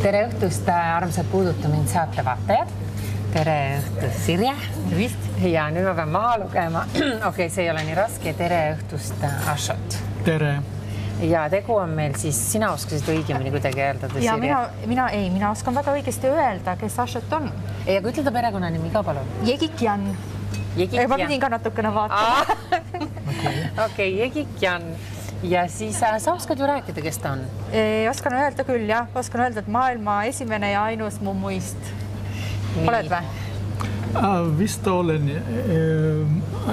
Tere õhtust, armsad Puuduta mind saatevaatajad. Tere õhtust, Sirje. Tervist. Ja nüüd ma pean maha lugema. Okei, see ei ole nii raske. Tere õhtust, Ashot. Tere. Ja tegu on meil siis, sina oskasid õigemini kuidagi öelda, ja Sirje? Mina oskan väga õigesti öelda, kes Ashot on. Ja kui ütleda perekonnanimi ka, palun? Jegikjan. Ma pidin ka natukene vaatama. Okei, Jegikjan. Ja siis sa oskad ju rääkida, kes ta on? Oskan öelda küll, jah. Oskan öelda, et maailma esimene ja ainus mummuist. Oled või? Vist olen,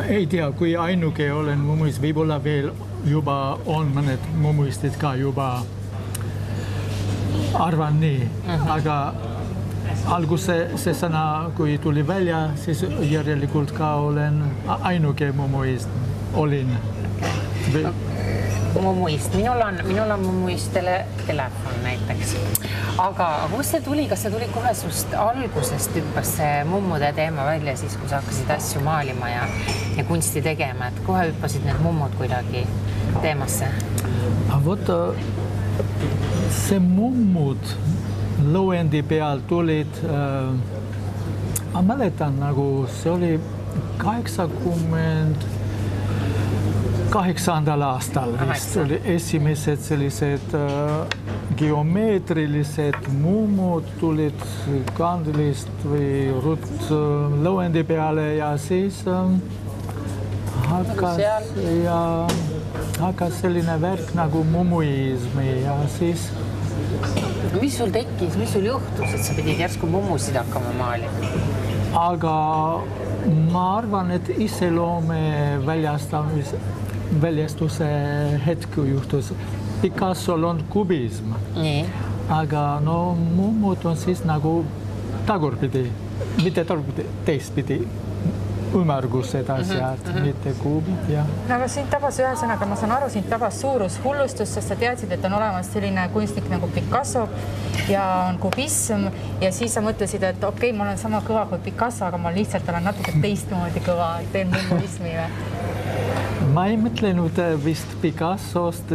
ei tea, kui ainuke olen mummuist, võib-olla veel juba on mõned mummuistid ka juba arvan nii, aga alguse see sõna, kui tuli välja, siis järelikult ka olen ainuke mummuist olin. Mummuist. Minul on mummuist telefon näiteks. Aga kust see tuli? Kas see tuli kohe sust algusest hüppas see mummude teema välja siis, kui sa hakkasid asju maalima ja kunsti tegema, et kohe hüppasid need mummud kuidagi teemasse? Vot see mummud lõuendi peal tulid, ma mäletan, nagu see oli 88. aastal vist oli esimesed sellised geomeetrilised mummud tulid kandilist või lõuendi peale ja siis hakkas selline värk nagu mummuismi ja siis... Mis sul tekkis, mis sul juhtus, et sa pidid järsku mummusid hakkama maalima? Aga ma arvan, et iseloome väljastuse hetku juhtus. Picassol on kubism, aga mummud on siis nagu tagurpidi, mitte tagurpidi, teistpidi, ümmargused asjad, mitte kuubid. Aga sind tabas ühesõnaga, ma saan aru, sind tabas suurushullustus, sest sa teadsid, et on olemas selline kunstnik nagu Picasso ja on kubism ja siis sa mõtlesid, et okei, ma olen sama kõva kui Picasso, aga ma lihtsalt olen natuke teistmoodi kõva, teen mummuismi või? Ma ei mõtlenud vist Picassost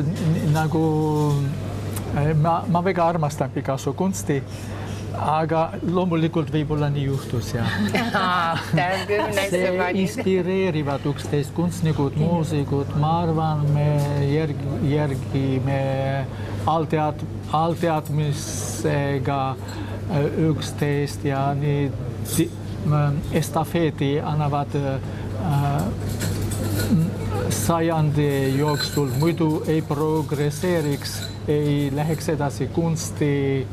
nagu, ma väga armastan Picasso kunsti, aga loomulikult võib-olla nii juhtus, jah. See inspireerivad üksteist kunstnikud, muusikud, ma arvan, me järgime allteadmisega üksteist ja nii estafeeti annavad sajandi jooksul, muidu ei progresseeriks, ei läheks edasi kunsti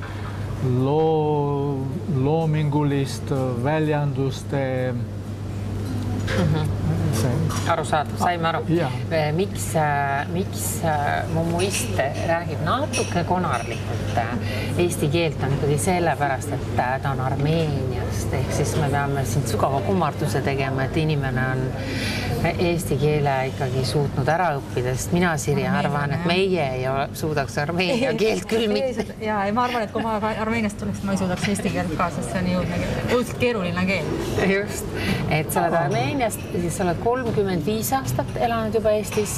loomingulist väljanduste. Arusaadav, saime aru. Miks mummuist räägib natuke konarlikult eesti keelt on ikkagi sellepärast, et ta on Armeeniast, ehk siis me peame siin sügava kummarduse tegema, et inimene on eesti keele ikkagi suutnud ära õppida, sest mina, Sirje, arvan, et meie ei suudaks armeenia keelt küll mitte. Ja ma arvan, et kui ma Armeeniast tuleks, ma ei suudaks eesti keelt ka, sest see on õudselt keeruline keel. Just, et sa oled Armeeniast, siis sa oled 35 aastat elanud juba Eestis.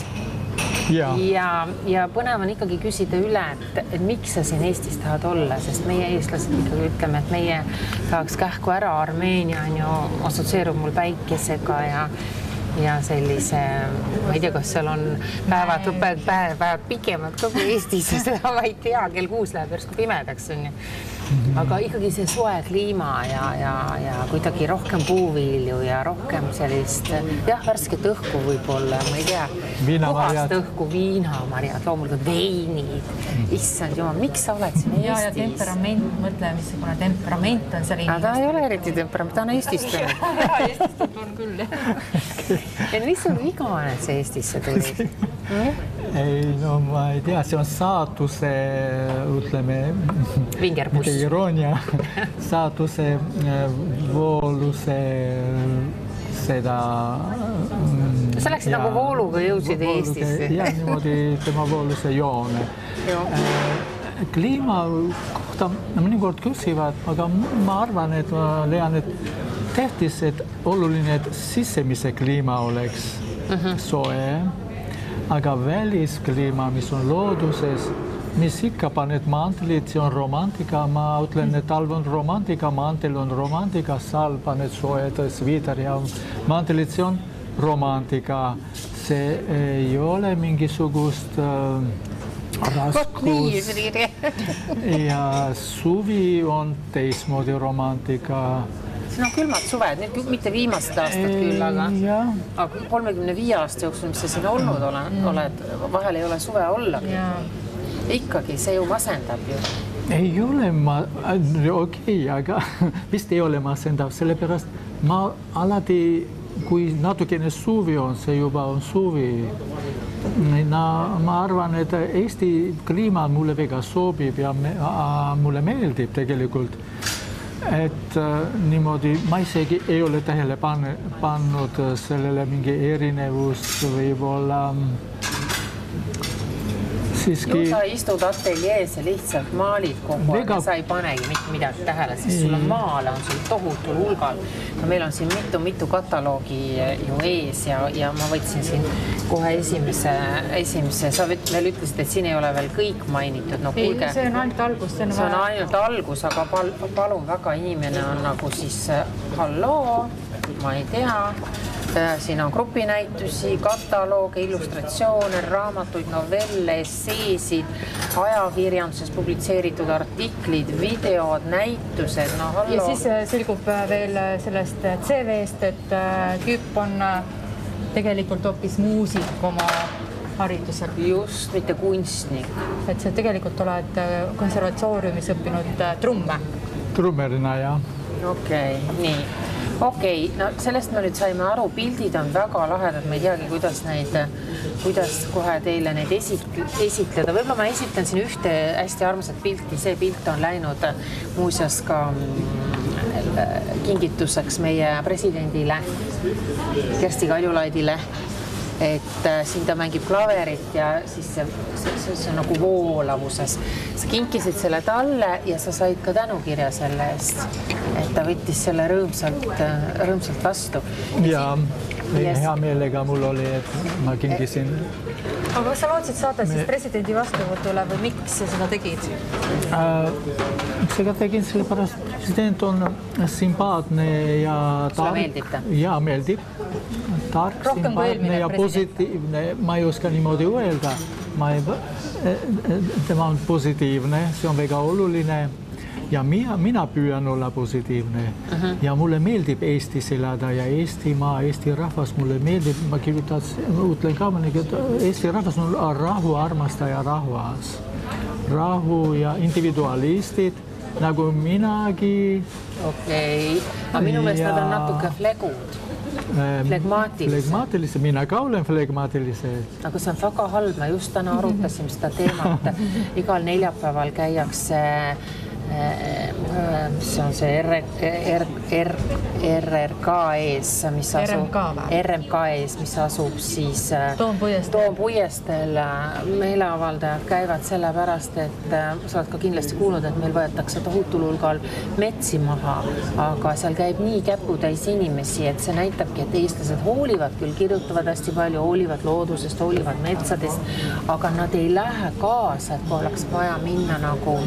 Ja põnev on ikkagi küsida üle, et miks sa siin Eestis tahad olla, sest meie eestlased ikkagi ütleme, et meie tahaks kähku ära Armeenia, assotsieerub mul päikesega ja sellise, ma ei tea, kas seal on päevad pikemad ka kui Eestis, seda ma ei tea, kell 6 läheb järsku pimedaks. Aga ikkagi see soe kliima ja kuidagi rohkem puuvilju ja rohkem sellist, värsket õhku võib-olla, ma ei tea, puhast õhku, viinamarjad, loomulikult veinid, issand jumal, miks sa oled siin Eestis? Ja temperament, mõtle, missugune temperament on seal inimest. Ta ei ole eriti temperament, ta on Eestist. Eestist on küll, jah. Ja mis sul viga on, et see Eestisse tuli? Ei, ma ei tea, see on saatuse, ütleme, Vingerbus. Iroonia, saatuse vooluse seda... Sa läksid nagu vooluga jõudsid Eestisse. Ja niimoodi tema vooluse joone. Kliima kohta mõnikord küsivad, aga ma arvan, et ma leian, et tähtis, et oluline, et sisemise kliima oleks soe, aga väliskliima, mis on looduses, mis ikka paned mantelit, see on romantika, ma ütlen, et talv on romantika, mantel on romantika, sal paned soojad sviiter ja mantelit, see on romantika. See ei ole mingisugust raskus ja suvi on teismoodi romantika. Siin on külmad suved, nüüd mitte viimased aastad küll, aga 35 aasta jooksul, mis sa siin olnud oled, vahel ei ole suve olla. Ikkagi see ju masendab ju. Ei ole okei, aga vist ei ole masendav, sellepärast ma alati kui natukene suvi on, see juba on suvi. Ma arvan, et Eesti kliima mulle väga sobib ja mulle meeldib tegelikult. Et niimoodi, ma isegi ei ole tähele pannud sellele mingi erinevust võib-olla siiski... Ju sa istud ateljees ja lihtsalt maalid kogu aeg ja sa ei panegi mitte midagi tähele, sest sul on maale, on sul tohutul hulgal. Meil on siin mitu kataloogi ju ees ja ma võtsin siin kohe esimese. Sa veel ütlesid, et siin ei ole veel kõik mainitud. No, kuulge, see on ainult algus. See on ainult algus, aga palun väga, inimene on nagu siis halloo, ma ei tea. Siin on grupinäitusi, katalooge, illustratsioone, raamatuid, novelle, esseesid, ajakirjanduses publitseeritud artiklid, videod, näitused. No, ja siis selgub veel sellest CV-st, et Küpp on tegelikult hoopis muusik oma haridusel. Just, mitte kunstnik. Et sa tegelikult oled konservatooriumis õppinud trumme. Trummerina, jah. Okei, nii. Okei, no sellest me nüüd saime aru, pildid on väga lahedad, ma ei teagi, kuidas kohe teile neid esitleda. Võib-olla ma esitlen siin ühte hästi armsat pilti, see pilt on läinud muuseas ka kingituseks meie presidendile Kersti Kaljulaidile, et siin ta mängib klaverit ja siis see on nagu voolavuses. Sa kinkisid selle talle ja sa said ka tänukirja selle eest, et ta võttis selle rõõmsalt vastu. Ja hea meelega mul oli, et ma kinkisin. Aga kas sa lootsid saada siis presidendi vastuvõtule või miks sa seda tegid? Seda tegin sellepärast, president on sympaatne ja tark. Sulle meeldib ta? Ja, meeldib. Tark, sympaatne ja positiivne. Ma ei oska niimoodi öelda. Tema on positiivne, see on väga oluline. Ja mina püüan olla positiivne. Ja mulle meeldib Eestis elada ja Eestimaa, Eesti rahvas mulle meeldib. Ma ütlen ka, et Eesti rahvas on rahu armastaja rahvas. Rahu ja individualistid, nagu minagi. Okei, aga minu meelest nad on natuke flegud. Flegmaatilise. Mina ka olen flegmaatilise. Aga see on väga halb. Ma just täna arutasime seda teemat. Igal neljapäeval käiakse see on see RRK ees, mis asub siis Toompuiestel. Meeleavaldajad käivad sellepärast, et sa oled ka kindlasti kuulnud, et meil võetakse tohutul hulgal metsi maha, aga seal käib nii käputäis inimesi, et see näitabki, et eestlased hoolivad küll, kirjutavad hästi palju, hoolivad loodusest, hoolivad metsadest, aga nad ei lähe kaasa, et kui oleks vaja minna nagu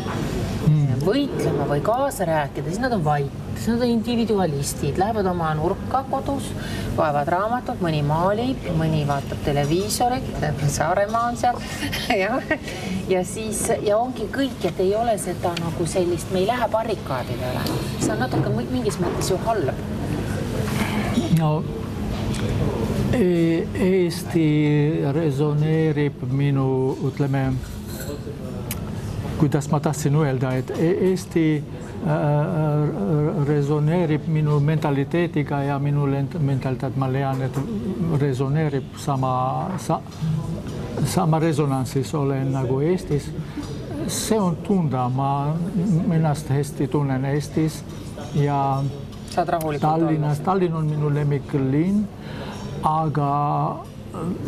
võitlema või kaasa rääkida, siis nad on vait, siis nad on individualistid, lähevad oma nurka kodus, loevad raamatut, mõni maalib, mõni vaatab televiisorit, Saaremaa on seal ja siis ja ongi kõik, et ei ole seda nagu sellist, me ei lähe barrikaadidele. See on natuke mingis mõttes ju halb. No, Eesti resoneerib minu, ütleme, kuidas ma tahtsin öelda, et Eesti resoneerib minu mentaliteetiga ja minu mentaliteet, ma leian, et resoneerib sama resonantsis olen nagu Eestis. See on tunda, ma ennast hästi tunnen Eestis ja Tallinnas. Tallinn on minu lemmiklinn, aga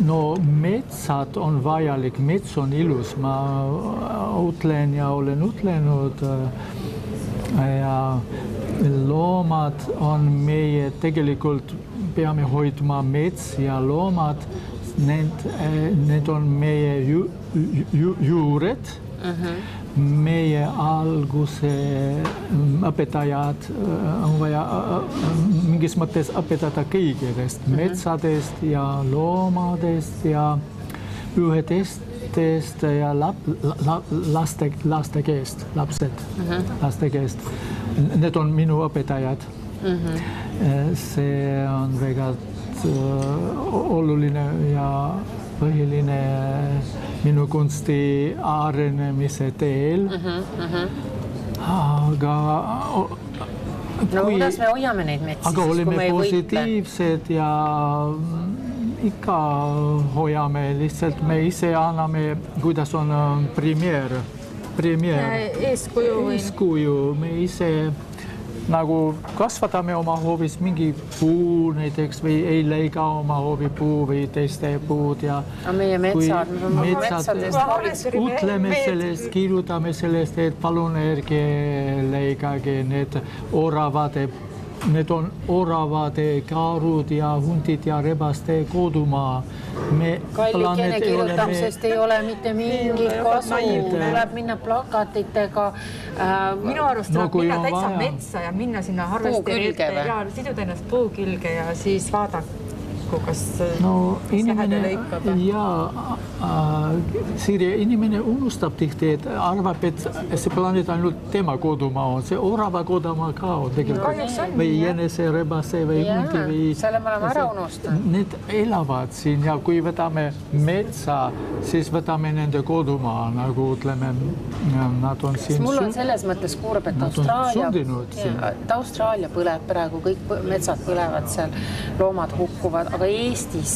no metsad on vajalik, mets on ilus, ma ütlen ja olen ütlenud ja loomad on meie, tegelikult peame hoidma mets ja loomad, need on meie juured Meie alguse õpetajad on vaja mingis mõttes õpetada kõigedest, metsadest ja loomadest ja ühetestest ja laste keest, laste keest. Need on minu õpetajad. See on väga oluline ja põhiline minu kunsti arenemise teel. Aga kuidas me hoiame neid metsi? Aga oleme positiivsed ja ikka hoiame, lihtsalt me ise anname, kuidas on premeer. Eeskuju, me ise nagu kasvatame oma hoovis mingi puu näiteks või ei leika oma hoovi puu või teiste puud ja meie metsad ütleme sellest, kirjutame sellest, et palun ärge leikage need oravade. Need on oravade, kaarud ja hundid ja rebaste kodumaa. Kallikene kirjutamisest ei ole mitte mingit kasu. Tuleb minna plakatitega. Minu arust tuleb minna täitsa metsa ja minna sinna harvesteri ette ja siduda ennast puu külge ja siis vaadata, kas sähede lõikab. Sirje, inimene unustab tihti, et arvab, et see planeet ainult tema kodumaa on. See orava kodumaa ka on tegelikult. Või jänese, rebase või hundi. Selle me oleme ära unustanud. Need elavad siin ja kui võtame metsa, siis võtame nende kodumaa, nagu ütleme, nad on siin. Mul on selles mõttes kurb, et Austraalia põleb praegu, kõik metsad põlevad seal, loomad hukkuvad, aga Eestis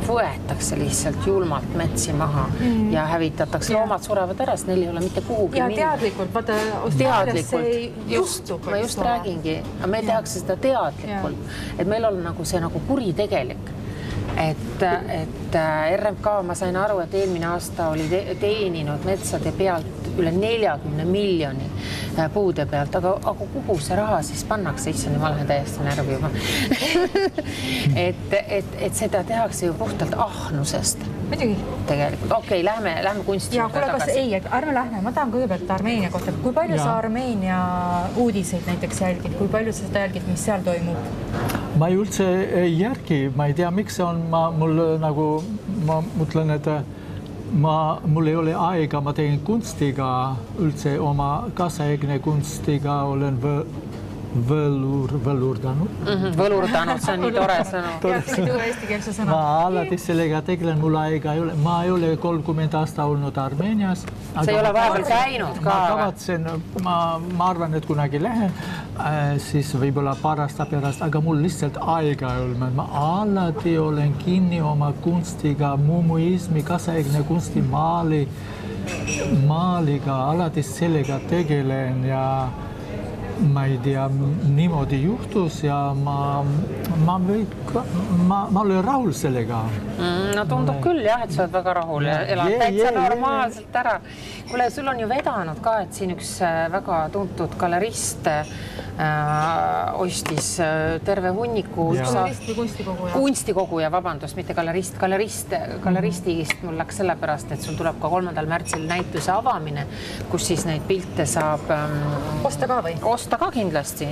võetakse lihtsalt julmalt metsi maha ja hävitatakse. Loomad surevad ära, sest neil ei ole mitte kuhugi minna. Ja teadlikult, vaata, Austraalias see juhtub. Ma just räägingi, aga me tehakse seda teadlikult, et meil on nagu see nagu kuritegelik. Et RMK, ma sain aru, et eelmine aasta oli teeninud metsade pealt üle 40 miljoni puude pealt, aga kuhu see raha siis pannakse? Issani, ma lähen täiesti närvi juba. et seda tehakse ju puhtalt ahnusest. Muidugi. Tegelikult. Okei, lähme kunsti. Ja kuule, kas ei, ärme lähme. Ma tahan kõigepealt Armeenia kohta. Kui palju sa Armeenia uudiseid näiteks jälgid? Kui palju sa seda jälgid, mis seal toimub? Ma ei üldse ei järgi. Ma ei tea, miks see on. Mul nagu, ma mõtlen, et mul ei ole aega, ma teen kunstiga üldse oma kaasaegne kunstiga olen võlurdanud. Võlurdanud, see on nii tore sõnu. Ma alati sellega tegelen, mul aega ei ole. Ma ei ole 30 aasta olnud Armeenias. See ei ole vahepeal käinud ka? Ma kavatsen, ma arvan, et kunagi lähen, siis võib-olla paar aasta pärast, aga mul lihtsalt aega ei ole. Ma alati olen kinni oma kunstiga, mumuismi, kaasaegne kunsti maaliga, alati sellega tegelen ja ma ei tea, niimoodi juhtus ja ma olen rahul sellega. No tundub küll jah, et sa oled väga rahul ja elad täitsa normaalselt ära. Kuule, sul on ju vedanud ka, et siin üks väga tuntud galerist ostis terve hunniku kunstikoguja, vabandust, mitte galerist. Galeristist mul läks sellepärast, et sul tuleb ka 3. märtsil näituse avamine, kus siis neid pilte saab osta ka või? Osta ka kindlasti.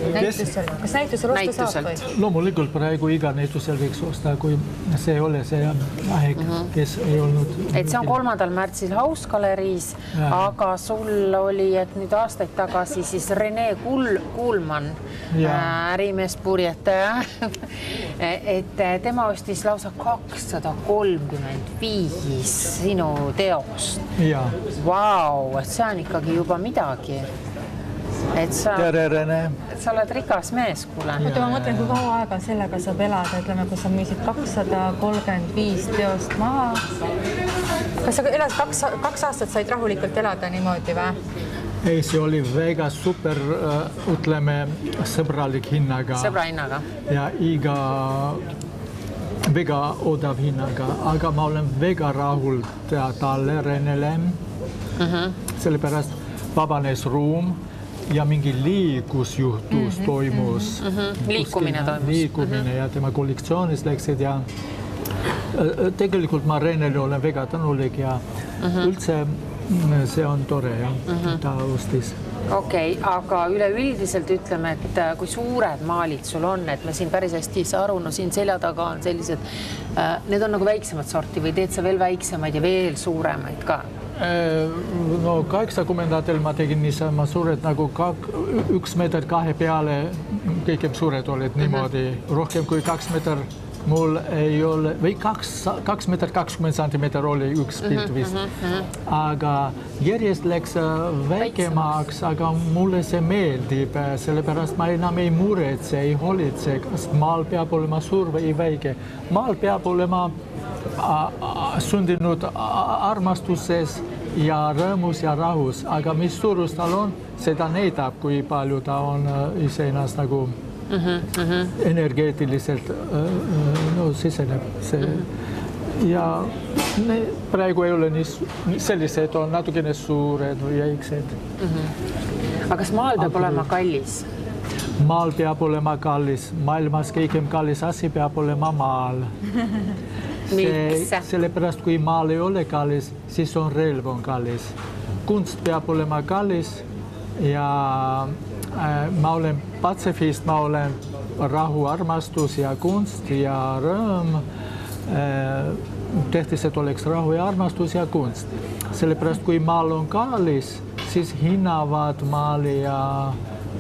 Kas näitusel osta saab või? Loomulikult praegu iga näitusel võiks osta, kui see ei ole see aeg, kes ei olnud. Et see on 3. märtsil Hausgaleriis, aga sul oli, et nüüd aastaid tagasi siis Rene Kuulman, ärimees purjetaja, et tema ostis lausa 235 sinu teost. Vau, et see on ikkagi juba midagi. Tere, Rene. Sa oled rikas mees, kuule. Ma mõtlen, kui kaua aega sellega saab elada, ütleme, kui sa müüsid 235 teost maha. Kas sa elad 2 aastat said rahulikult elada niimoodi või? Ei, see oli väga super, ütleme, sõbralik hinnaga. Sõbra hinnaga. Ja väga odav hinnaga, aga ma olen väga rahul talle, Renele. Sellepärast vabanes ruum ja mingi liikusjuhtus toimus. Liikumine ja tema kollektsioonis läksid ja tegelikult ma Renele olen väga tänulik ja üldse see on tore jah, ta ostis. Okei, aga üleüldiselt ütleme, et kui suured maalid sul on, et me siin päris hästi ei saa aru, no siin selja taga on sellised, need on nagu väiksemad sorti või teed sa veel väiksemaid ja veel suuremaid ka? No 80-ndatel ma tegin niisama suured nagu 1 meeter 2 peale, kõige suured olid niimoodi, rohkem kui 2 meeter mul ei ole, või 2 meeter 20 centimeter oli üks pilt vist. Aga järjest läks väikemaks, aga mulle see meeldib, sellepärast ma enam ei muretse, ei hoolitse, kas maal peab olema suur või väike. Maal peab olema sündinud armastuses ja rõõmus ja rahus, aga mis suurus tal on, seda näitab, kui palju ta on iseennast nagu energeetiliselt siseneb see. Ja praegu ei ole nii sellised, on natukene suured või väiksed. Aga kas maal peab olema kallis? Maal peab olema kallis. Maailmas kõigem kallis asi peab olema maal. Miks? Sellepärast, kui maal ei ole kallis, siis on relv on kallis. Kunst peab olema kallis ja ma olen patsifist, ma olen rahu, armastus ja kunst ja rõõm. Tähtis, et oleks rahu ja armastus ja kunst. Sellepärast, kui maal on kallis, siis hinnavad maali ja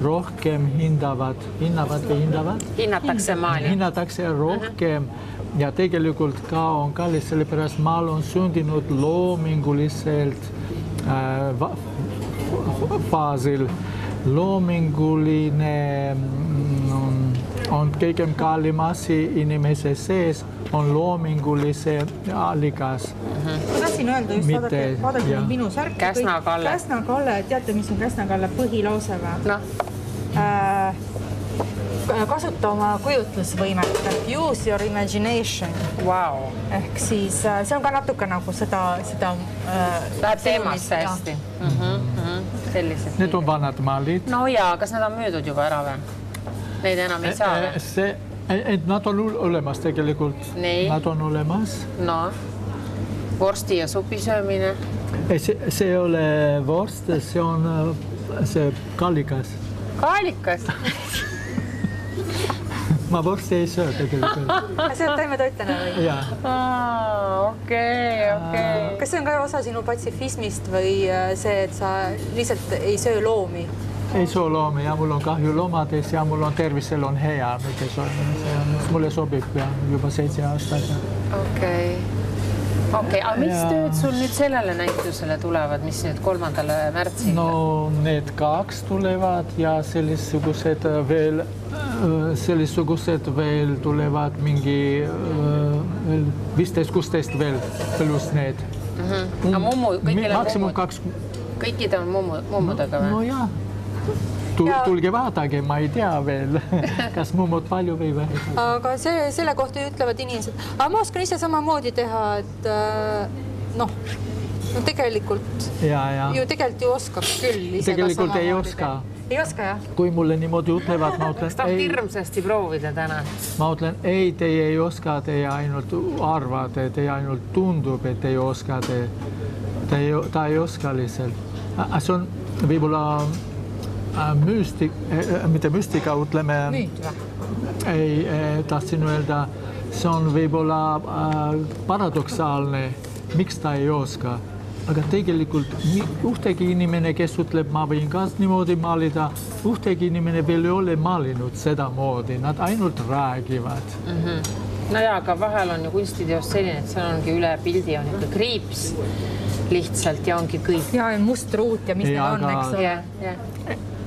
rohkem hinnatakse maali. Hinnatakse rohkem ja tegelikult ka on kallis, sellepärast maal on sündinud loominguliselt faasil. Loominguline on kõigem kallim asi inimese sees, on loomingulise allikas. Ma tahtsin öelda just, vaadake minu särki. Käsna-Kalle. Käsna-Kalle, teate, mis on Käsna-Kalle põhilause või? No. Kasuta oma kujutlusvõimet, use your imagination. Wow. Ehk siis see on ka natuke nagu seda läheb teemasse hästi. Sellised. Need on vanad maalid. No ja, kas nad on müüdud juba ära või? Neid enam ei saa või? Nad on olemas tegelikult. Nad on olemas. No, vorsti ja supi söömine. See ei ole vorst, see on see kallikas. Kallikas? Ma vorsti ei söö tegelikult. See on taimetoitlane või? Okei. Kas see on ka osa sinu patsifismist või see, et sa lihtsalt ei söö loomi? Ei söö loomi ja mul on kahju loomades ja mul on tervisel on hea. Mulle sobib juba 7 aastat. Okei, aga mis tööd sul nüüd sellele näitusele tulevad, mis nüüd 3. märtsil? No need 2 tulevad ja sellisugused veel tulevad mingi 15-16 veel pluss need. Maksimum 2. Kõikide on mummudega või? No jaa. Tulge vaadake, ma ei tea veel, kas mummud palju või vähe. Aga selle kohta ütlevad inimesed, aga ma oskan ise samamoodi teha, et tegelikult ju tegelikult oskab küll ise tegelikult ei oska. Ei oska, jah? Kui mulle niimoodi ütlevad, ma ütlen... Kas tahab hirmsasti proovida täna? Ma ütlen, ei, teie ei oska, teie ainult arvate, teie ainult tundub, et ei oska, ta ei oska lihtsalt. See on võib-olla mitte müstika, ütleme... Müüt või? Ei, tahtsin öelda, see on võib-olla paradoksaalne, miks ta ei oska. Aga tegelikult ühtegi inimene, kes ütleb, ma võin ka niimoodi maalida, ühtegi inimene veel ei ole maalinud seda moodi, nad ainult räägivad. No jaa, aga vahel on ju kunstiteos selline, et seal ongi üle pildi on ikka kriips lihtsalt ja ongi kõik. Ja must ruut ja mis need on, eks ole.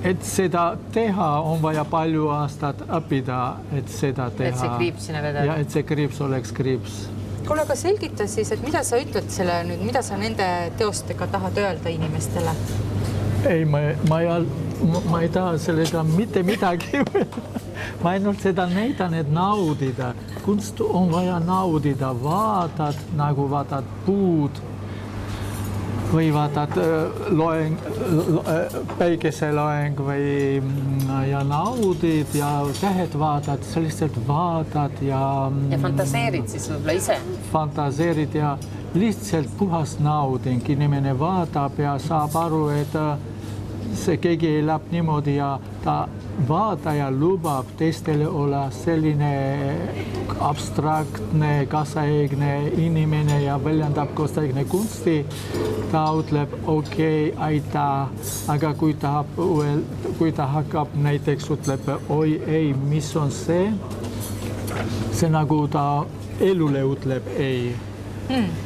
Et seda teha on vaja palju aastat õppida, et seda teha. Et see kriips sinna vedada. Ja et see kriips oleks kriips. Kuule, aga selgita siis, et mida sa ütled selle nüüd, mida sa nende teostega tahad öelda inimestele? Ei, ma ei taha sellega mitte midagi. Ma ainult seda näitan, et naudida. Kunst on vaja naudida, vaatad, nagu vaatad puud või vaatad päikeseloeng ja naudid ja tähed vaatad, selliselt vaatad ja... Ja fantaseerid siis võib-olla ise? Fantaseerid ja lihtsalt puhas nauding, inimene vaatab ja saab aru, et see keegi elab niimoodi ja ta vaataja lubab teistele olla selline abstraktne, kaasaegne inimene ja väljendab kaasaegne kunsti. Ta ütleb, okei, aitäh, aga kui ta hakkab näiteks ütleb, oi ei, mis on see nagu ta elule ütleb ei.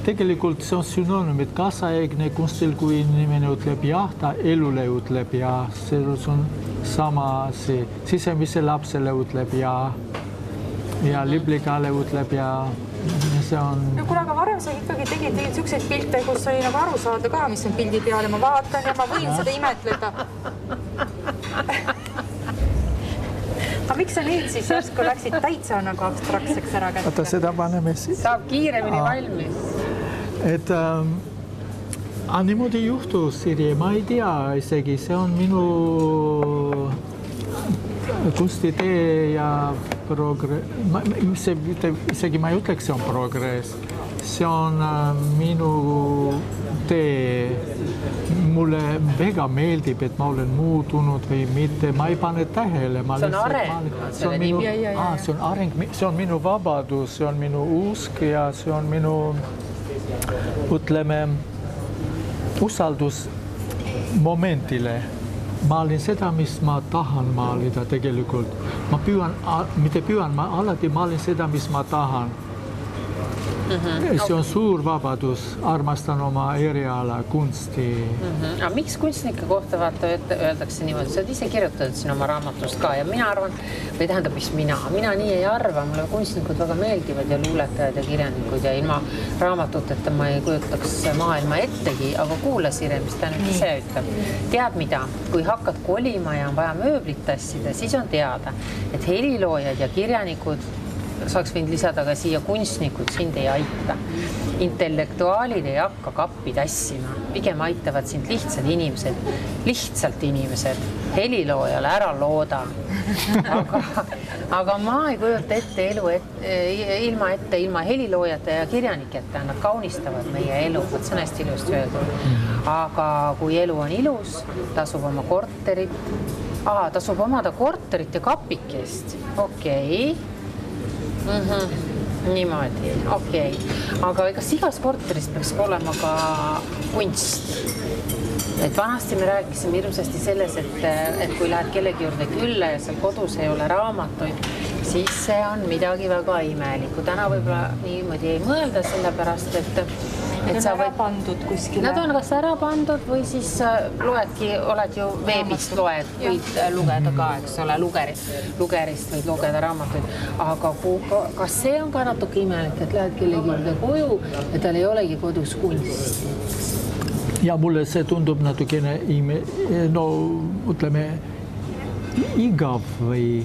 Tegelikult see on synonüüm, et kaasaegne kunstil, kui inimene ütleb jah, ta elule ütleb jah, see on sama asi. Sisemise lapsele ütleb jah ja liblikale ütleb jah. See on... No, kuule, aga varem sa ikkagi tegid selliseid pilte, kus sai nagu aru saada ka, mis on pildi peal ja ma vaatan ja ma võin seda imetleda. Aga miks sa nüüd siis järsku läksid täitsa nagu abstraktseks ära kätte? Oota, seda paneme siis. Saab kiiremini valmis. Et niimoodi juhtus, Siri, ma ei tea isegi, see on minu kunstitee ja progress. Isegi ma ei ütleks, see on progress. See on minu tee. Mulle väga meeldib, et ma olen muutunud või mitte. Ma ei pane tähele. See on areng. See on areng. See on minu vabadus, see on minu usk ja see on minu, ütleme, usaldus momentile. Maalin seda, mis ma tahan maalida tegelikult. Ma alati maalin seda, mis ma tahan. See on suur vabadus, armastan oma eriala, kunsti. Aga miks kunstnike kohta öeldakse niimoodi? Sa oled ise kirjutanud siin oma raamatust ka ja mina arvan, või tähendab, mis mina nii ei arva, mulle kunstnikud väga meeldivad ja luuletajad ja kirjanikud ja ilma raamatuteta ma ei kujutaks maailma ettegi, aga kuula, Sire, mis ta nüüd ise ütleb. Tead mida? Kui hakkad kolima ja on vaja mööblit tassida, siis on teada, et heliloojad ja kirjanikud saaks võinud lisada ka siia kunstnikud sind ei aita. Intellektuaalid ei hakka kappi tassima, pigem aitavad sind lihtsalt inimesed, heliloojale ära looda. Aga ma ei kujuta ette elu ilma heliloojate ja kirjaniketa, nad kaunistavad meie elu, see on hästi ilusti öeldud. Aga kui elu on ilus, tasub omada korterit ja kapikest, okei. Niimoodi, okei. Aga kas igas korteris peaks olema ka kunst? Et vanasti me rääkisime hirmsasti selles, et kui lähed kellegi juurde külla ja seal kodus ei ole raamatuid, siis see on midagi väga imelikku. Täna võib-olla niimoodi ei mõelda sellepärast, et sa võid pandud kuskile. Nad on kas ära pandud või siis oled ju veebist võid lugeda ka, eks ole, lugerist võid lugeda raamatuid. Aga kas see on ka natuke imelik, et lähed kellegi juurde koju ja tal ei olegi kodus kunsti? Ja mulle see tundub natukene ütleme, igav või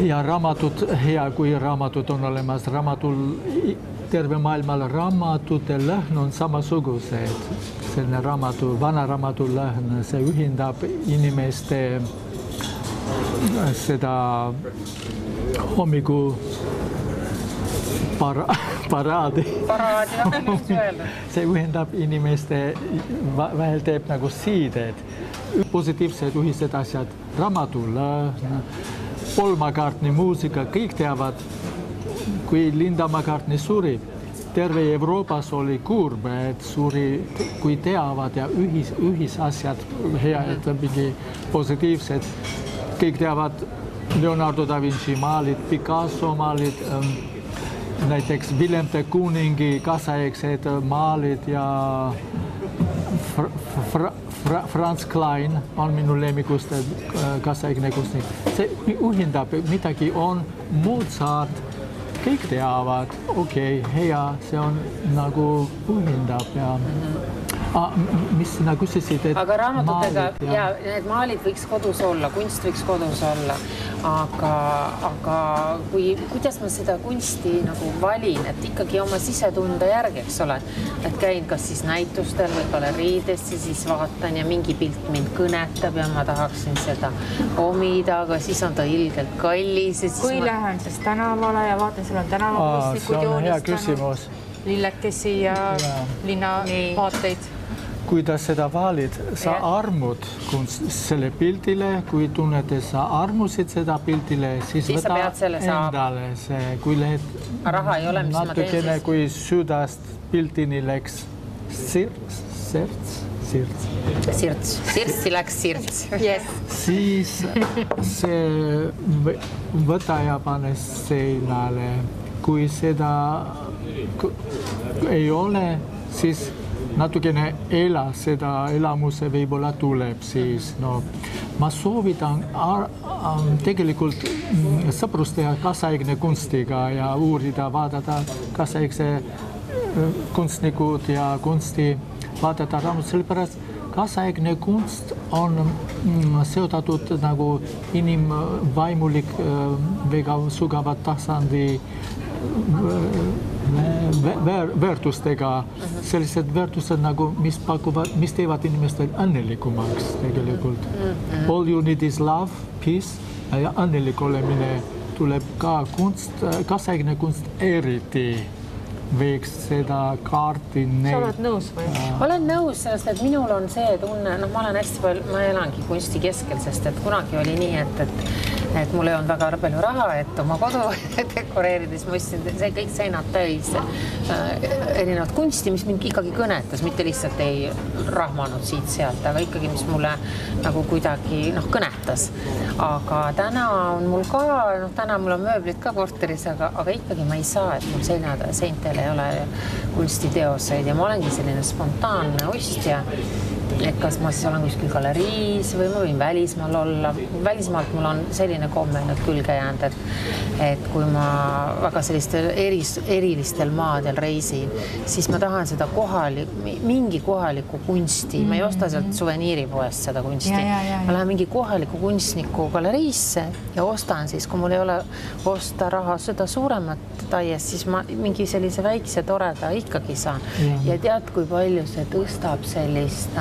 ja raamatut, hea kui raamatut on olemas, terve maailmal raamatute lõhn on samasugused. Selline vana raamatu lõhn, see ühendab inimeste seda hommiku paraadi. See ühendab inimeste vahel teeb nagu siided. Positiivsed ühised asjad, raamatu lõhn, Paul McCartney muusika, kõik teavad, kui Linda McCartney suri, terve Euroopas oli kurb, et suri, kui teavad ja ühisasjad, head, mingi positiivsed, kõik teavad Leonardo da Vinci maalid, Picasso maalid, näiteks Willem de Kooningi kaasaegsed maalid ja Franz Klein on minu lemmikuste kaasaegne kunstnik. See ühendab, midagi on Mozart, kõik teavad, okei, hea, see on nagu ühendab ja mis sina küsisid, et aga raamatutega ja need maalid võiks kodus olla, kunst võiks kodus olla, aga kuidas ma seda kunsti nagu valin, et ikkagi oma sisetunde järgi, eks ole, et käin kas siis näitustel või galeriidesse, siis vaatan ja mingi pilt mind kõnetab ja ma tahaksin seda omida, aga siis on ta ilgelt kallis. Kui lähen siis tänavale ja vaatan, seal on tänavakunstnikud joonistanud. See on hea küsimus. lillekesi ja linnavaateid. Kui ta seda valid, sa armud selle pildile, kui tunned, et sa armusid seda pildile, siis võta endale see, kui lähed natukene, kui südast pildini läks sirtsi läks sirts. Siis see võta ja pane seinale. Kui seda ei ole, siis natukene seda elamuse võib-olla tuleb siis. No, ma soovitan tegelikult sõprust teha kaasaegne kunstiga ja uurida, vaadata kaasaegse kunstnikud ja kunsti vaadata raamat, sellepärast kaasaegne kunst on seotatud nagu inimvaimulik väga sügava tasandi väärtustega, sellised väärtused nagu, mis teevad inimestel õnnelikumaks tegelikult. All you need is love, peace ja õnnelik olemine tuleb ka kunst, kaasaegne kunst eriti võiks seda kaarti Sa oled nõus või? Ma olen nõus, sest et minul on see tunne, ma olen hästi palju, ma elangi kunsti keskel, sest et kunagi oli nii, et mul ei olnud väga palju raha, et oma kodu dekoreerides ma ostsin see kõik seinad täis erinevat kunsti, mis mind ikkagi kõnetas, mitte lihtsalt ei rahmanud siit-sealt, aga ikkagi, mis mulle nagu kuidagi kõnetas. Aga täna on mul ka, täna mul on mööblid ka korteris, aga ikkagi ma ei saa, et mul seintele ei ole kunstiteoseid ja ma olengi selline spontaanne ostja. Et kas ma siis olen kuskil galeriis või ma võin välismaal olla. Välismaalt mul on selline komme nüüd külge jäänud, et kui ma väga sellistel erilistel maadel reisin, siis ma tahan seda mingi kohaliku kunsti. Ma ei osta sealt suveniiripoest seda kunsti. Ma lähen mingi kohaliku kunstniku galeriisse ja ostan siis, kui mul ei ole osta raha seda suuremat taiest, siis ma mingi sellise väikse toreda ikkagi saan. Ja tead, kui palju see tõstab sellist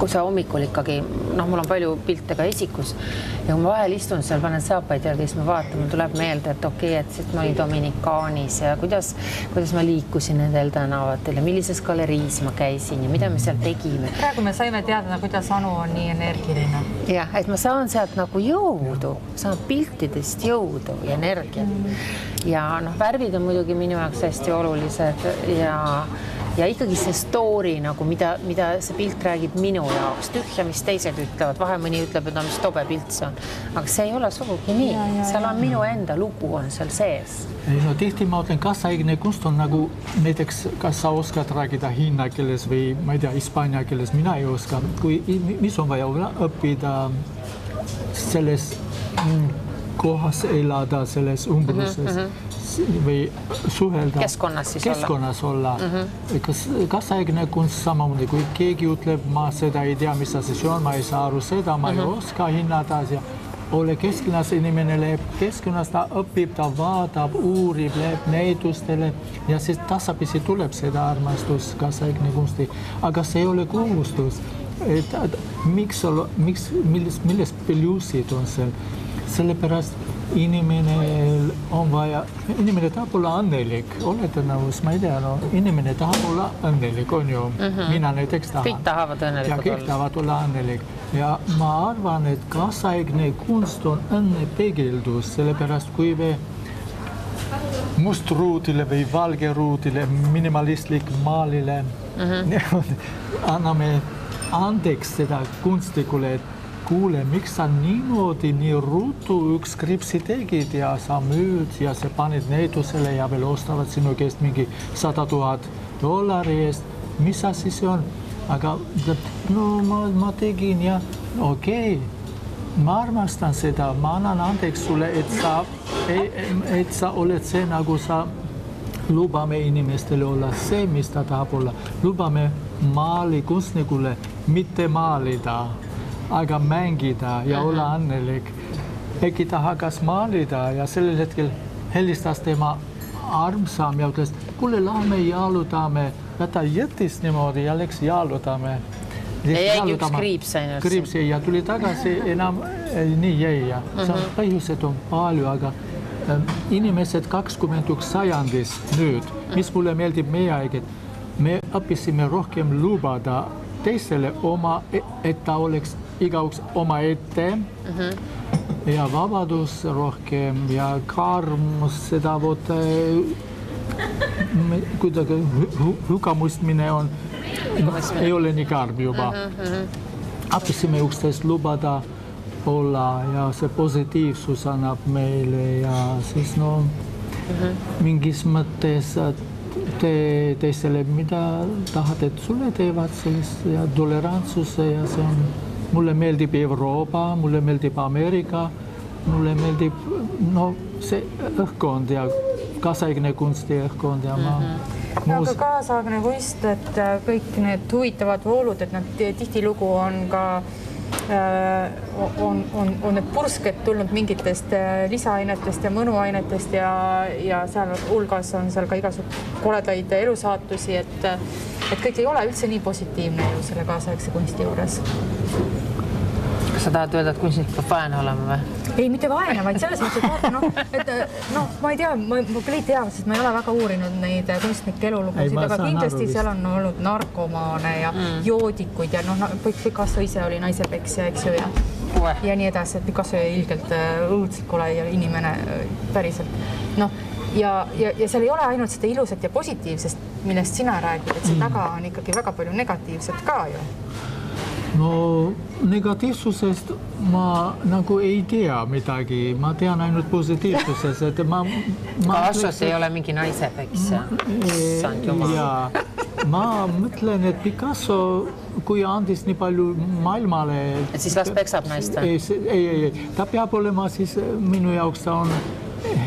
kui sa hommikul ikkagi, mul on palju pilte ka esikus ja kui ma vahel istun seal, panen saapaid järgi, siis ma vaatan, mul tuleb meelde, et okei, et siis ma olin Dominikaanis ja kuidas ma liikusin nendel tänavatel ja millises galeriis ma käisin ja mida me seal tegime. Praegu me saime teada, kuidas Anu on nii energiline. Jah, et ma saan sealt nagu jõudu, saan piltidest jõudu ja energiat. Ja värvid on muidugi minu jaoks hästi olulised ja ikkagi see story, mida see pilt räägib minu jaoks, tühja, mis teised ütlevad, vahe mõni ütleb, et mis tobe pilt see on. Aga see ei ole sugugi nii. Seal on minu enda lugu on seal sees. Tihti ma ütlen, kaasaegne kunst on nagu näiteks, kas sa oskad räägida hiina keeles või ma ei tea, hispaania keeles, mina ei oska. Mis on vaja õppida selles kohas elada, selles umbruses või suhelda. Keskkonnas olla. Kaasaegne kunst samamoodi, kui keegi ütleb, ma seda ei tea, mis asi see on, ma ei saa aru seda, ma ei oska hinnata ja ole keskkonnas, inimene läheb keskkonnas, ta õpib, ta vaatab, uurib, läheb näitustele ja siis tasapisi tuleb seda armastus kaasaegne kunsti, aga see ei ole kohustus. Milles plussid on seal? Sellepärast inimene tahab olla õnnelik, olete nõus, ma ei tea, inimene tahab olla õnnelik, on ju, mina näiteks tahan. Kõik tahavad õnnelikult olla. Kõik tahavad olla õnnelik ja ma arvan, et kaasaegne kunst on õnnepeegeldus, sellepärast kui me mustruudile või valgeruudile, minimalistlik maalile anname andeks seda kunstikule, et kuule, miks sa niimoodi nii ruutu üks kripsi tegid ja sa müüd ja sa panid näitusele ja veel ostavad sinu käest mingi $100,000 eest. Mis asi see on? Aga ma tegin ja okei, ma armastan seda, ma annan andeks sulle, et sa oled see, nagu sa lubame inimestele olla see, mis ta tahab olla. Lubame maali kunstnikule mitte maalida, aga mängida ja olla õnnelik. Äkki ta hakkas maalida ja sellel hetkel helistas tema armsam ja ütles, kuule, lähme jalutame. Ja ta jättis niimoodi ja läks jalutame. Ja jäi üks kriips ainult. Kriips ja tuli tagasi enam nii jäi. Põhjused on palju, aga inimesed 21 sajandis nüüd, mis mulle meeldib meie aeged, me õppisime rohkem lubada teisele oma, et ta oleks igaüks oma ette ja vabadus rohkem ja karm seda kuidagi hukkamõistmine on, ei ole nii karm juba. Õppisime üksteist lubada olla ja see positiivsus annab meile ja siis mingis mõttes teisele, mida tahad, et sulle teevad siis ja tolerantsuse ja see on, mulle meeldib Euroopa, mulle meeldib Ameerika, mulle meeldib see õhkkond ja kaasaegne kunsti õhkkond ja aga kaasaegne kunst, et kõik need huvitavad voolud, et nad tihtilugu on ka on need pursked tulnud mingitest lisaainetest ja mõnuainetest ja seal hulgas on seal ka igasugused koledaid elusaatusi, et kõik ei ole üldse nii positiivne ju selle kaasaegse kunsti juures. Kas sa tahad öelda, et kunstnik peab vaene olema või? Ei, mitte vaene, vaid selles mõttes, et ma ei tea, ma küll ei tea, sest ma ei ole väga uurinud neid kunstnike elulugusid, aga kindlasti seal on olnud narkomaane ja joodikuid ja Picasso ise oli naisepeksja, eks ju, ja nii edasi, et Picasso ilgelt õudselt kole ja inimene päriselt. Ja seal ei ole ainult seda ilusat ja positiivsest, millest sina räägid, et see taga on ikkagi väga palju negatiivset ka ju. No negatiivsusest ma nagu ei tea midagi, ma tean ainult positiivsusest, et Picassos ei ole mingi naisepeksja. Ma mõtlen, et Picasso, kui andis nii palju maailmale... Et siis las peksab naist? Ei, ta peab olema siis, minu jaoks ta on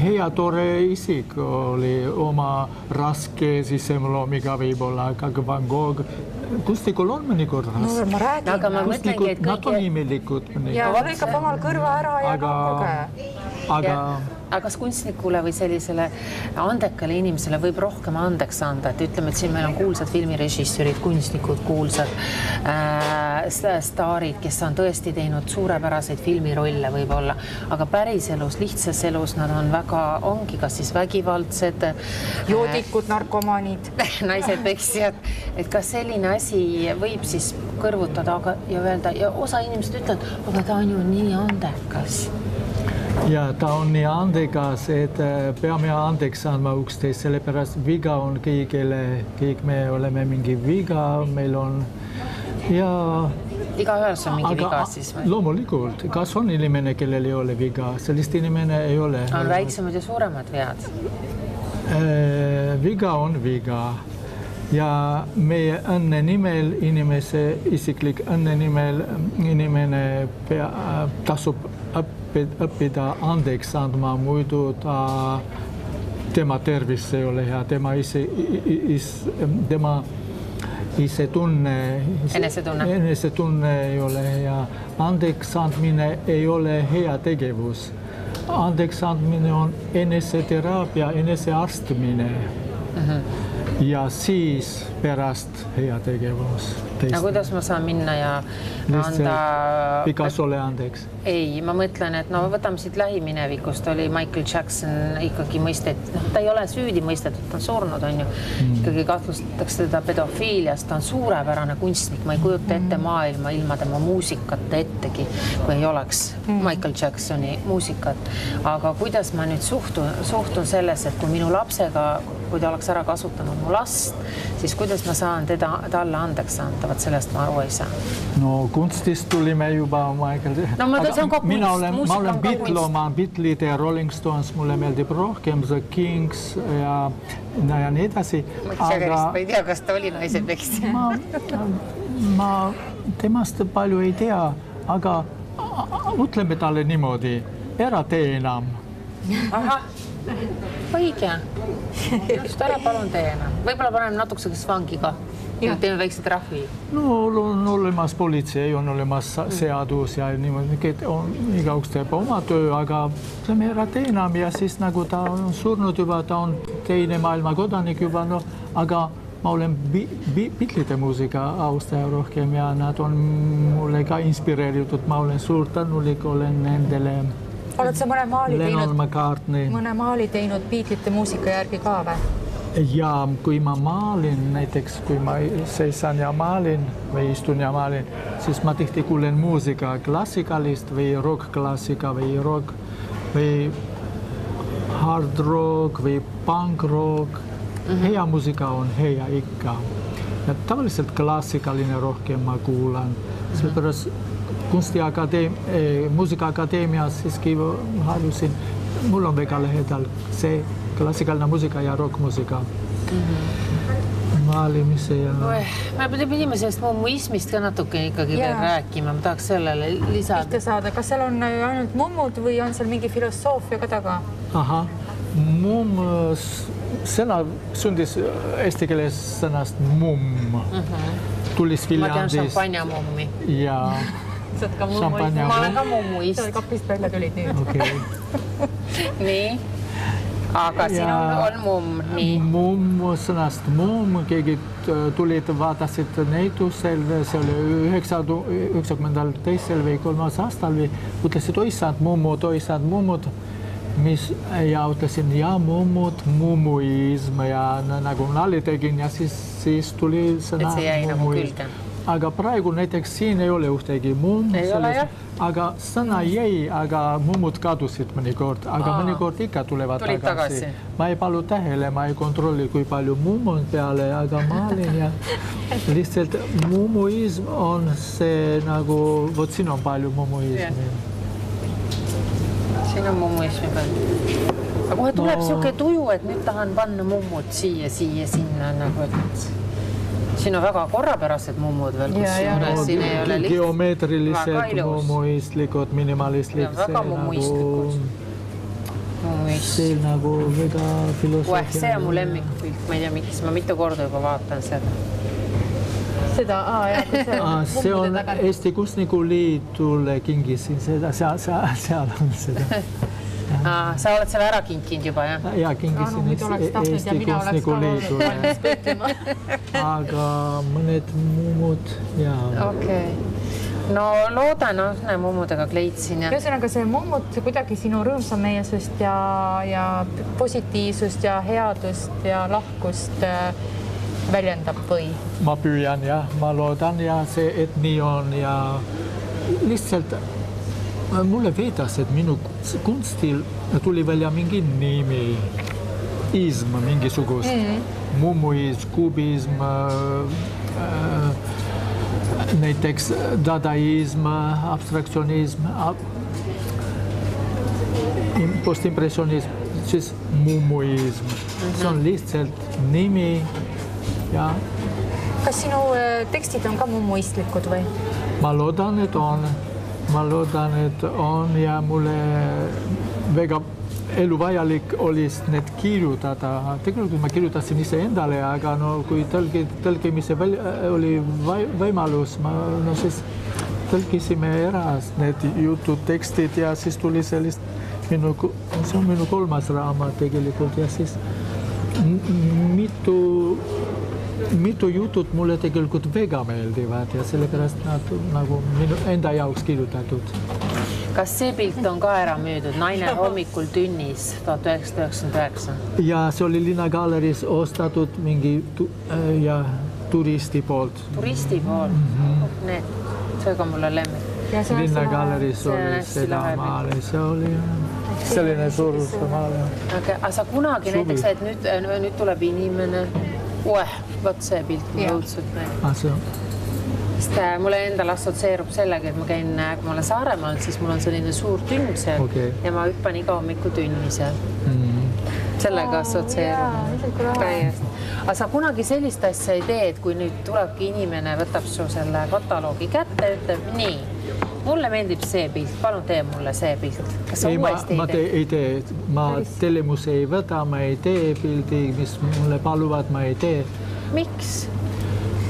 hea tore isik, oli oma raske sisemloomiga võib-olla, aga Van Gogh kunstnikul on mõnikord raske. Ma räägin. Aga ma mõtlengi, et nad on imelikud. Ja lõikab omal kõrva ära ja aga Aga kas kunstnikule või sellisele andekale inimesele võib rohkem andeks anda, et ütleme, et siin meil on kuulsad filmirežissöörid, kunstnikud, kuulsad staarid, kes on tõesti teinud suurepäraseid filmirolle võib-olla, aga päris elus, lihtsas elus nad on väga, ongi kas siis vägivaldsed, joodikud, narkomaanid, naised peksjad, et kas selline asi võib siis kõrvutada ja öelda, ja osa inimesed ütlevad, aga ta on ju nii andekas. Ja ta on nii andekas, et peame andeks andma üksteist, sellepärast viga on kõigile, kõik me oleme mingi viga, meil on ja... Igaühes on mingi viga siis või? Loomulikult, kas on inimene, kellel ei ole viga, sellist inimene ei ole. On väiksemad ja suuremad vead? Viga on viga ja meie õnne nimel, inimese isiklik õnne nimel inimene tasub õppida andeks andma, muidu tema tervis ei ole hea, tema enesetunne ei ole hea. Andeks andmine ei ole hea tegevus. Andeks andmine on eneseteraapia, enesearstmine. Ja siis pärast hea tegevus. Ja kuidas ma saan minna ja anda... Picassole andeks? Ei, ma mõtlen, et võtame siit lähiminevikust, oli Michael Jackson ikkagi mõistet, ta ei ole süüdi mõistetud, ta on surnud, on ju. Ikkagi kahtlustatakse teda pedofiiliast, ta on suurepärane kunstnik, ma ei kujuta ette maailma ilma tema muusikate ettegi, kui ei oleks Michael Jacksoni muusikat. Aga kuidas ma nüüd suhtun selles, et kui minu lapsega, kui ta oleks ära kasutanud mu last, siis kuidas ma saan talle andeks anda? Vaat sellest ma aru ei saa. No kunstist tulime juba Michael... No see on ka kunst. Ma olen Beatled ja Rolling Stones, mulle meeldib rohkem, The Kings ja nii edasi. Ma ei tea, kas ta oli naisepeksja. Ma temast palju ei tea, aga ütleme talle niimoodi, ära tee enam. Aha, õige. Just ära palun tee enam. Võib-olla paneme natukeseks vangi ka. Teeme väikse trahvi. No on olemas politsei, on olemas seadus ja niimoodi, igaüks teeb oma töö, aga see ära tee enam ja siis nagu ta on surnud juba, ta on teine maailma kodanik juba, aga ma olen Beatlede muusika austaja rohkem ja nad on mulle ka inspireeritud, ma olen suur tänulik, olen nendele Oled sa mõne maali teinud Beatlesite muusika järgi ka või? Ja kui ma maalin, näiteks kui ma seisan ja maalin või istun ja maalin, siis ma tihti kuulen muusika klassikalist või rock-klassika või rock või hard rock või punk rock. Hea muusika on hea ikka. Ja tavalliselt klassikaline rohkem ma kuulan. Sellepärast muusikaakadeemias siiski halusin, mul on väga lähedal see klassikaline muusika ja rock-muusika. Maalimise ja... Me pidime sellest mummuismist ka natuke ikkagi veel rääkima. Ma tahaks sellele lisada. Pihta saada. Kas seal on ainult mummud või on seal mingi filosoofia ka taga? Aha. Mumm, sõna sündis eesti keeles sõnast mumm. Tulis Viljandis. Ma tean šampanjamummi. Ja šampanjamummi. Ma olen ka mummuist. Sa kapist välja tulid nüüd. Okay. Nii. Aga siin on mumm. Nii. Mumm sõnast mumm. Keegi tulid, vaatasid näitusel, see oli 92. või 3. aastal või ütlesid, oisad mummud. Ja ütlesin, ja mummud, mummuism ja nagu nali tegin ja siis tuli sõna mummuism. Aga praegu näiteks siin ei ole ühtegi mumm, aga sõna jäi, aga mummud kadusid mõnikord, aga mõnikord ikka tulevad tagasi. Ma ei palu tähele, ma ei kontrolli, kui palju mumm on peale, aga maalin ja lihtsalt mummuism on see nagu, vot siin on palju mummuismi. Siin on mummuismi peal. Aga kohe tuleb siuke tuju, et nüüd tahan panna mummud siia, sinna nagu, et siin on väga korrapärased mummud veel, kus siin ei ole lihtsalt. Geometrilised, mummuistlikud, minimalistlikud. Väga mummuistlikud. See nagu väga filosoofia. See on mu lemmikpilt, ma ei tea, miks ma mitu korda juba vaatan seda. See on Eesti Kunstniku Liidule kingisin seda, seal on seda. Sa oled selle ära kinkinud juba, jah? Ja kingisin Eesti Kunstniku Liidule. Aga mõned mummud, jaa. Okei. No loodan, mummudega kleitsin. Ühesõnaga see mummud kuidagi sinu rõõmsameelsust ja positiivsust ja headust ja lahkust väljendab või? Ma püüan ja ma loodan ja see, et nii on ja lihtsalt mulle veedas, et minu kunstil tuli välja mingi nimi, ism mingisugust, mummuism, kubism, näiteks dadaism, abstraktsionism, postimpressionism, siis mummuism. See on lihtsalt nimi. Ja. Kas sinu tekstid on ka mummuistlikud või? Ma loodan, et on ja mulle väga eluvajalik oli need kirjutada. Tegelikult ma kirjutasin ise endale, aga kui tõlkimise oli võimalus, siis tõlkisime ära need jutud, tekstid ja siis tuli sellist, see on minu 3. raamat tegelikult ja siis mitu jutut mulle tegelikult väga meeldivad ja sellepärast nad nagu minu enda jaoks kirjutatud. Kas see pilt on ka ära müüdud? Naine hommikul tünnis 1999? Ja see oli Linnagaleris ostatud mingi turisti poolt. Turisti poolt? See ka mulle lemmik. Linnagaleris oli seda maali, see oli selline suurus maali. Aga sa kunagi näiteks, et nüüd tuleb inimene, võt see pilt mulle õudselt meeldib. Sest mulle endal assootseerub sellega, et ma käin, kui ma olen Saaremaal, siis mul on selline suur tünn seal ja ma hüppan iga hommiku tünni seal. Sellega assootseerub. Aga sa kunagi sellist asja ei tee, et kui nüüd tulebki inimene, võtab su selle kataloogi kätte, ütleb nii, mulle meeldib see pilt, palun tee mulle see pilt. Kas sa uuesti ei tee? Ei tee. Ma tellimuse ei võta, ma ei tee pildi, mis mulle paluvad, ma ei tee. Miks?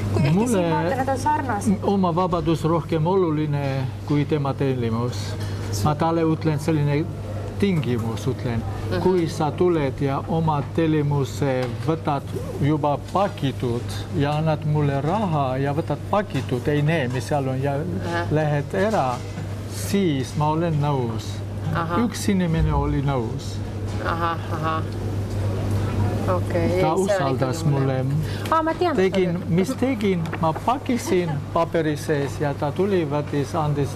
Kui ehk siin vaata, nad on sarnased. Oma vabadus rohkem oluline kui tema tellimus. Ma talle ütlen selline tingimus, ütlen. Kui sa tuled ja oma tellimuse võtad juba pakitud ja annad mulle raha ja võtad pakitud, ei näe, mis seal on ja lähed ära, siis ma olen nõus. Üks inimene oli nõus. Okay, ta usaldas mulle. Tegin, ma pakisin paperi sees ja ta tuli, võttis, andis.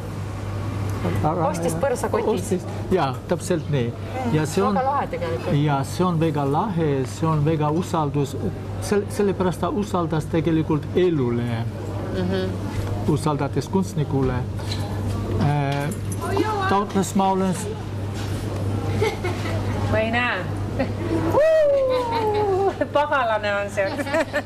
Ostis põrsakotis. Ja, täpselt nii. Ja see on väga lahe tegelikult. Ja see on väga lahe, see on väga usaldus. Sellepärast ta usaldas tegelikult elule. Usaldates kunstnikule. Ta ütles, ma olen... Ma ei näe. Pagalane on see.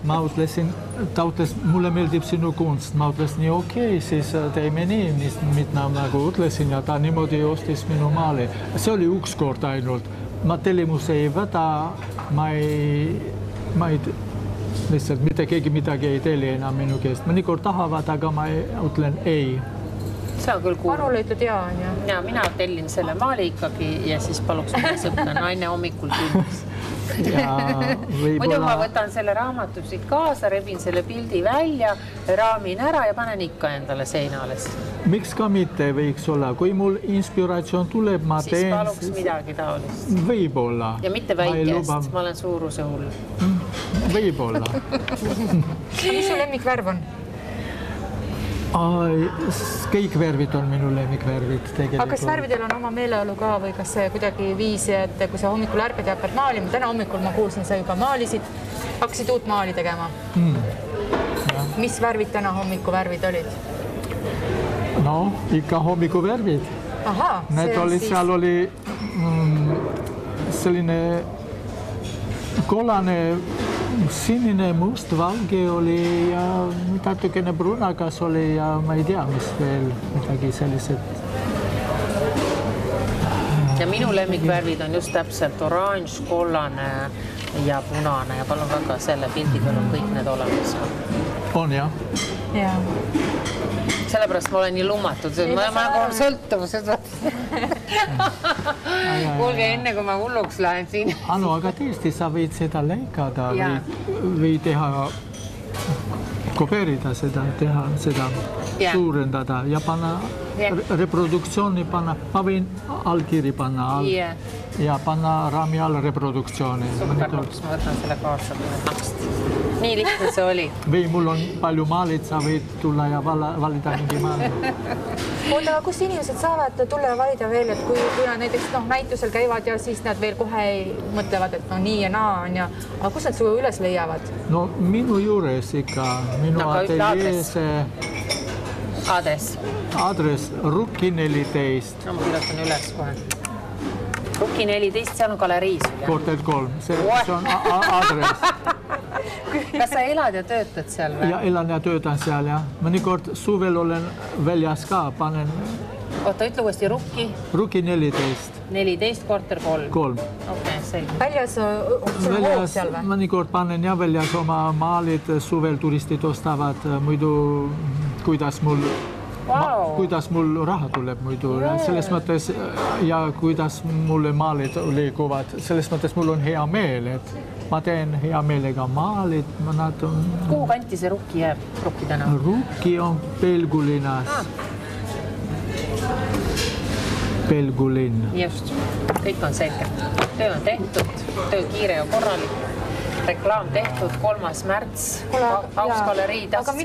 Ma ütlesin, ta ütles, mulle meeldib sinu kunst. Ma ütlesin, nii okei, siis teeme nii, mida nagu ütlesin ja ta niimoodi ostis minu maali. See oli üks kord ainult. Ma tellimus ei võta, ma ei lihtsalt mitte keegi midagi ei telli enam minu käest. Mõnikord tahavad, aga ma ütlen ei. See on küll kuul. Arule ütled jaa, on ju? Ja mina tellin selle maali ikkagi ja siis paluks mõne sõpra naine hommikul külmis. Muidu ma võtan selle raamatu siit kaasa, rebin selle pildi välja, raamin ära ja panen ikka endale seinales. Miks ka mitte võiks olla? Kui mul inspiratsioon tuleb, ma teen... Siis paluks midagi taolist. Võib-olla. Ja mitte väikest, ma olen suuruse hull. Võib-olla. Mis su lemmikvärv on? Kõik värvid on minu lemmikvärvid tegelikult. Aga kas värvidel on oma meeleolu ka või kas see kuidagi viisi, et kui sa hommikul ärkad ja hakkad maalima, täna hommikul ma kuulsin, sa juba maalisid, hakkasid uut maali tegema. Mis värvid täna hommiku värvid olid? No, ikka hommiku värvid. Need olid, seal oli selline kollane, sinine, must, valge oli ja natukene brunakas oli ja ma ei tea, mis veel midagi sellised. Ja minu lemmikvärvid on just täpselt oranž, kollane ja punane ja palun väga selle pildi peal on kõik need olemas. On jah? Jaa. Sellepärast ma olen nii lummatud, ma nagu on sõltuvused. Kuulge enne, kui ma hulluks lähen siin. Anu, aga tõesti, sa võid seda lõikada või teha, kopeerida seda, teha seda, suurendada ja panna reproduktsiooni panna. Ma võin allkiri panna ja panna raami all reproduktsiooni. Super, ma võtan selle kaasa. Nii lihtne see oli. Või mul on palju maalid, sa võid tulla ja valida mingi maali. Oota, aga kus inimesed saavad tulla ja valida veel, et kui nad näiteks näitusel käivad ja siis nad veel kohe mõtlevad, et no nii ja naa on ja, aga kus nad su üles leiavad? No minu juures ikka, minu ateljees. Adress Rukki 14. No ma kirjutan üles kohe. Rukki 14, seal on galeriis. Korter 3, see on adress. Kas sa elad ja töötad seal või? Ja elan ja töötan seal, jah. Mõnikord suvel olen väljas ka, panen... Oota, ütle uuesti Rukki? Rukki 14. 14, korter 3. 3. Okei, selge. Väljas on hoog seal või? Mõnikord panen ja väljas oma maalid, suvel turistid ostavad, muidu kuidas mul raha tuleb muidu. Selles mõttes ja kuidas mulle maalid liiguvad, selles mõttes mul on hea meel, et ma teen hea meelega maalid. Kuhu kanti see Rukki jääb? Rukki täna? Rukki on Pelgulinnas. Pelgulinn. Just, kõik on selge. Töö on tehtud, töö kiire ja korralik. Reklaam tehtud, 3. märts, Aus galerii. Aga ma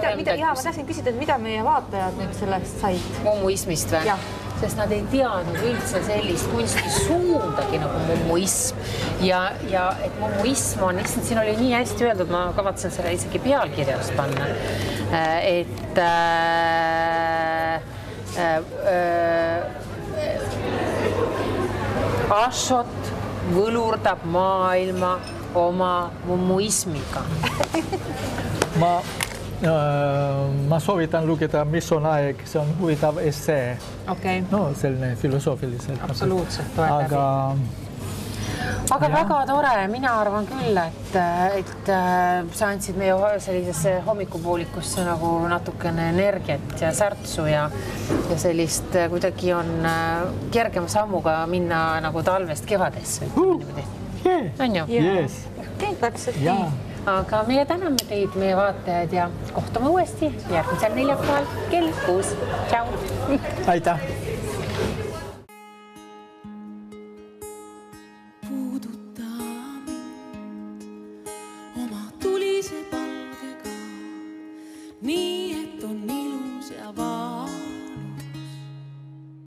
tahtsin küsida, et mida meie vaatajad nüüd sellest said? Mummuismist või? Sest nad ei teadnud üldse sellist kunstisuundagi nagu mummuism. Ja et mummuism on, lihtsalt siin oli nii hästi öeldud, ma kavatsen selle isegi pealkirjast panna, et Ashot võlurdab maailma oma mummuismiga. Ma soovitan lugeda, mis on aeg, see on huvitav essee. No, selline filosoofiliselt. Absoluutselt, aga väga tore, mina arvan küll, et sa andsid meie sellisesse hommikupoolikusse nagu natukene energiat ja särtsu ja sellist kuidagi on kergema sammuga minna nagu talvest kevadesse. On ju? Täpselt nii. Aga meie täname teid, meie vaatajad ja kohtume uuesti järgmisel neljapäeval kell 6. Tšau! Aitäh! puudutab.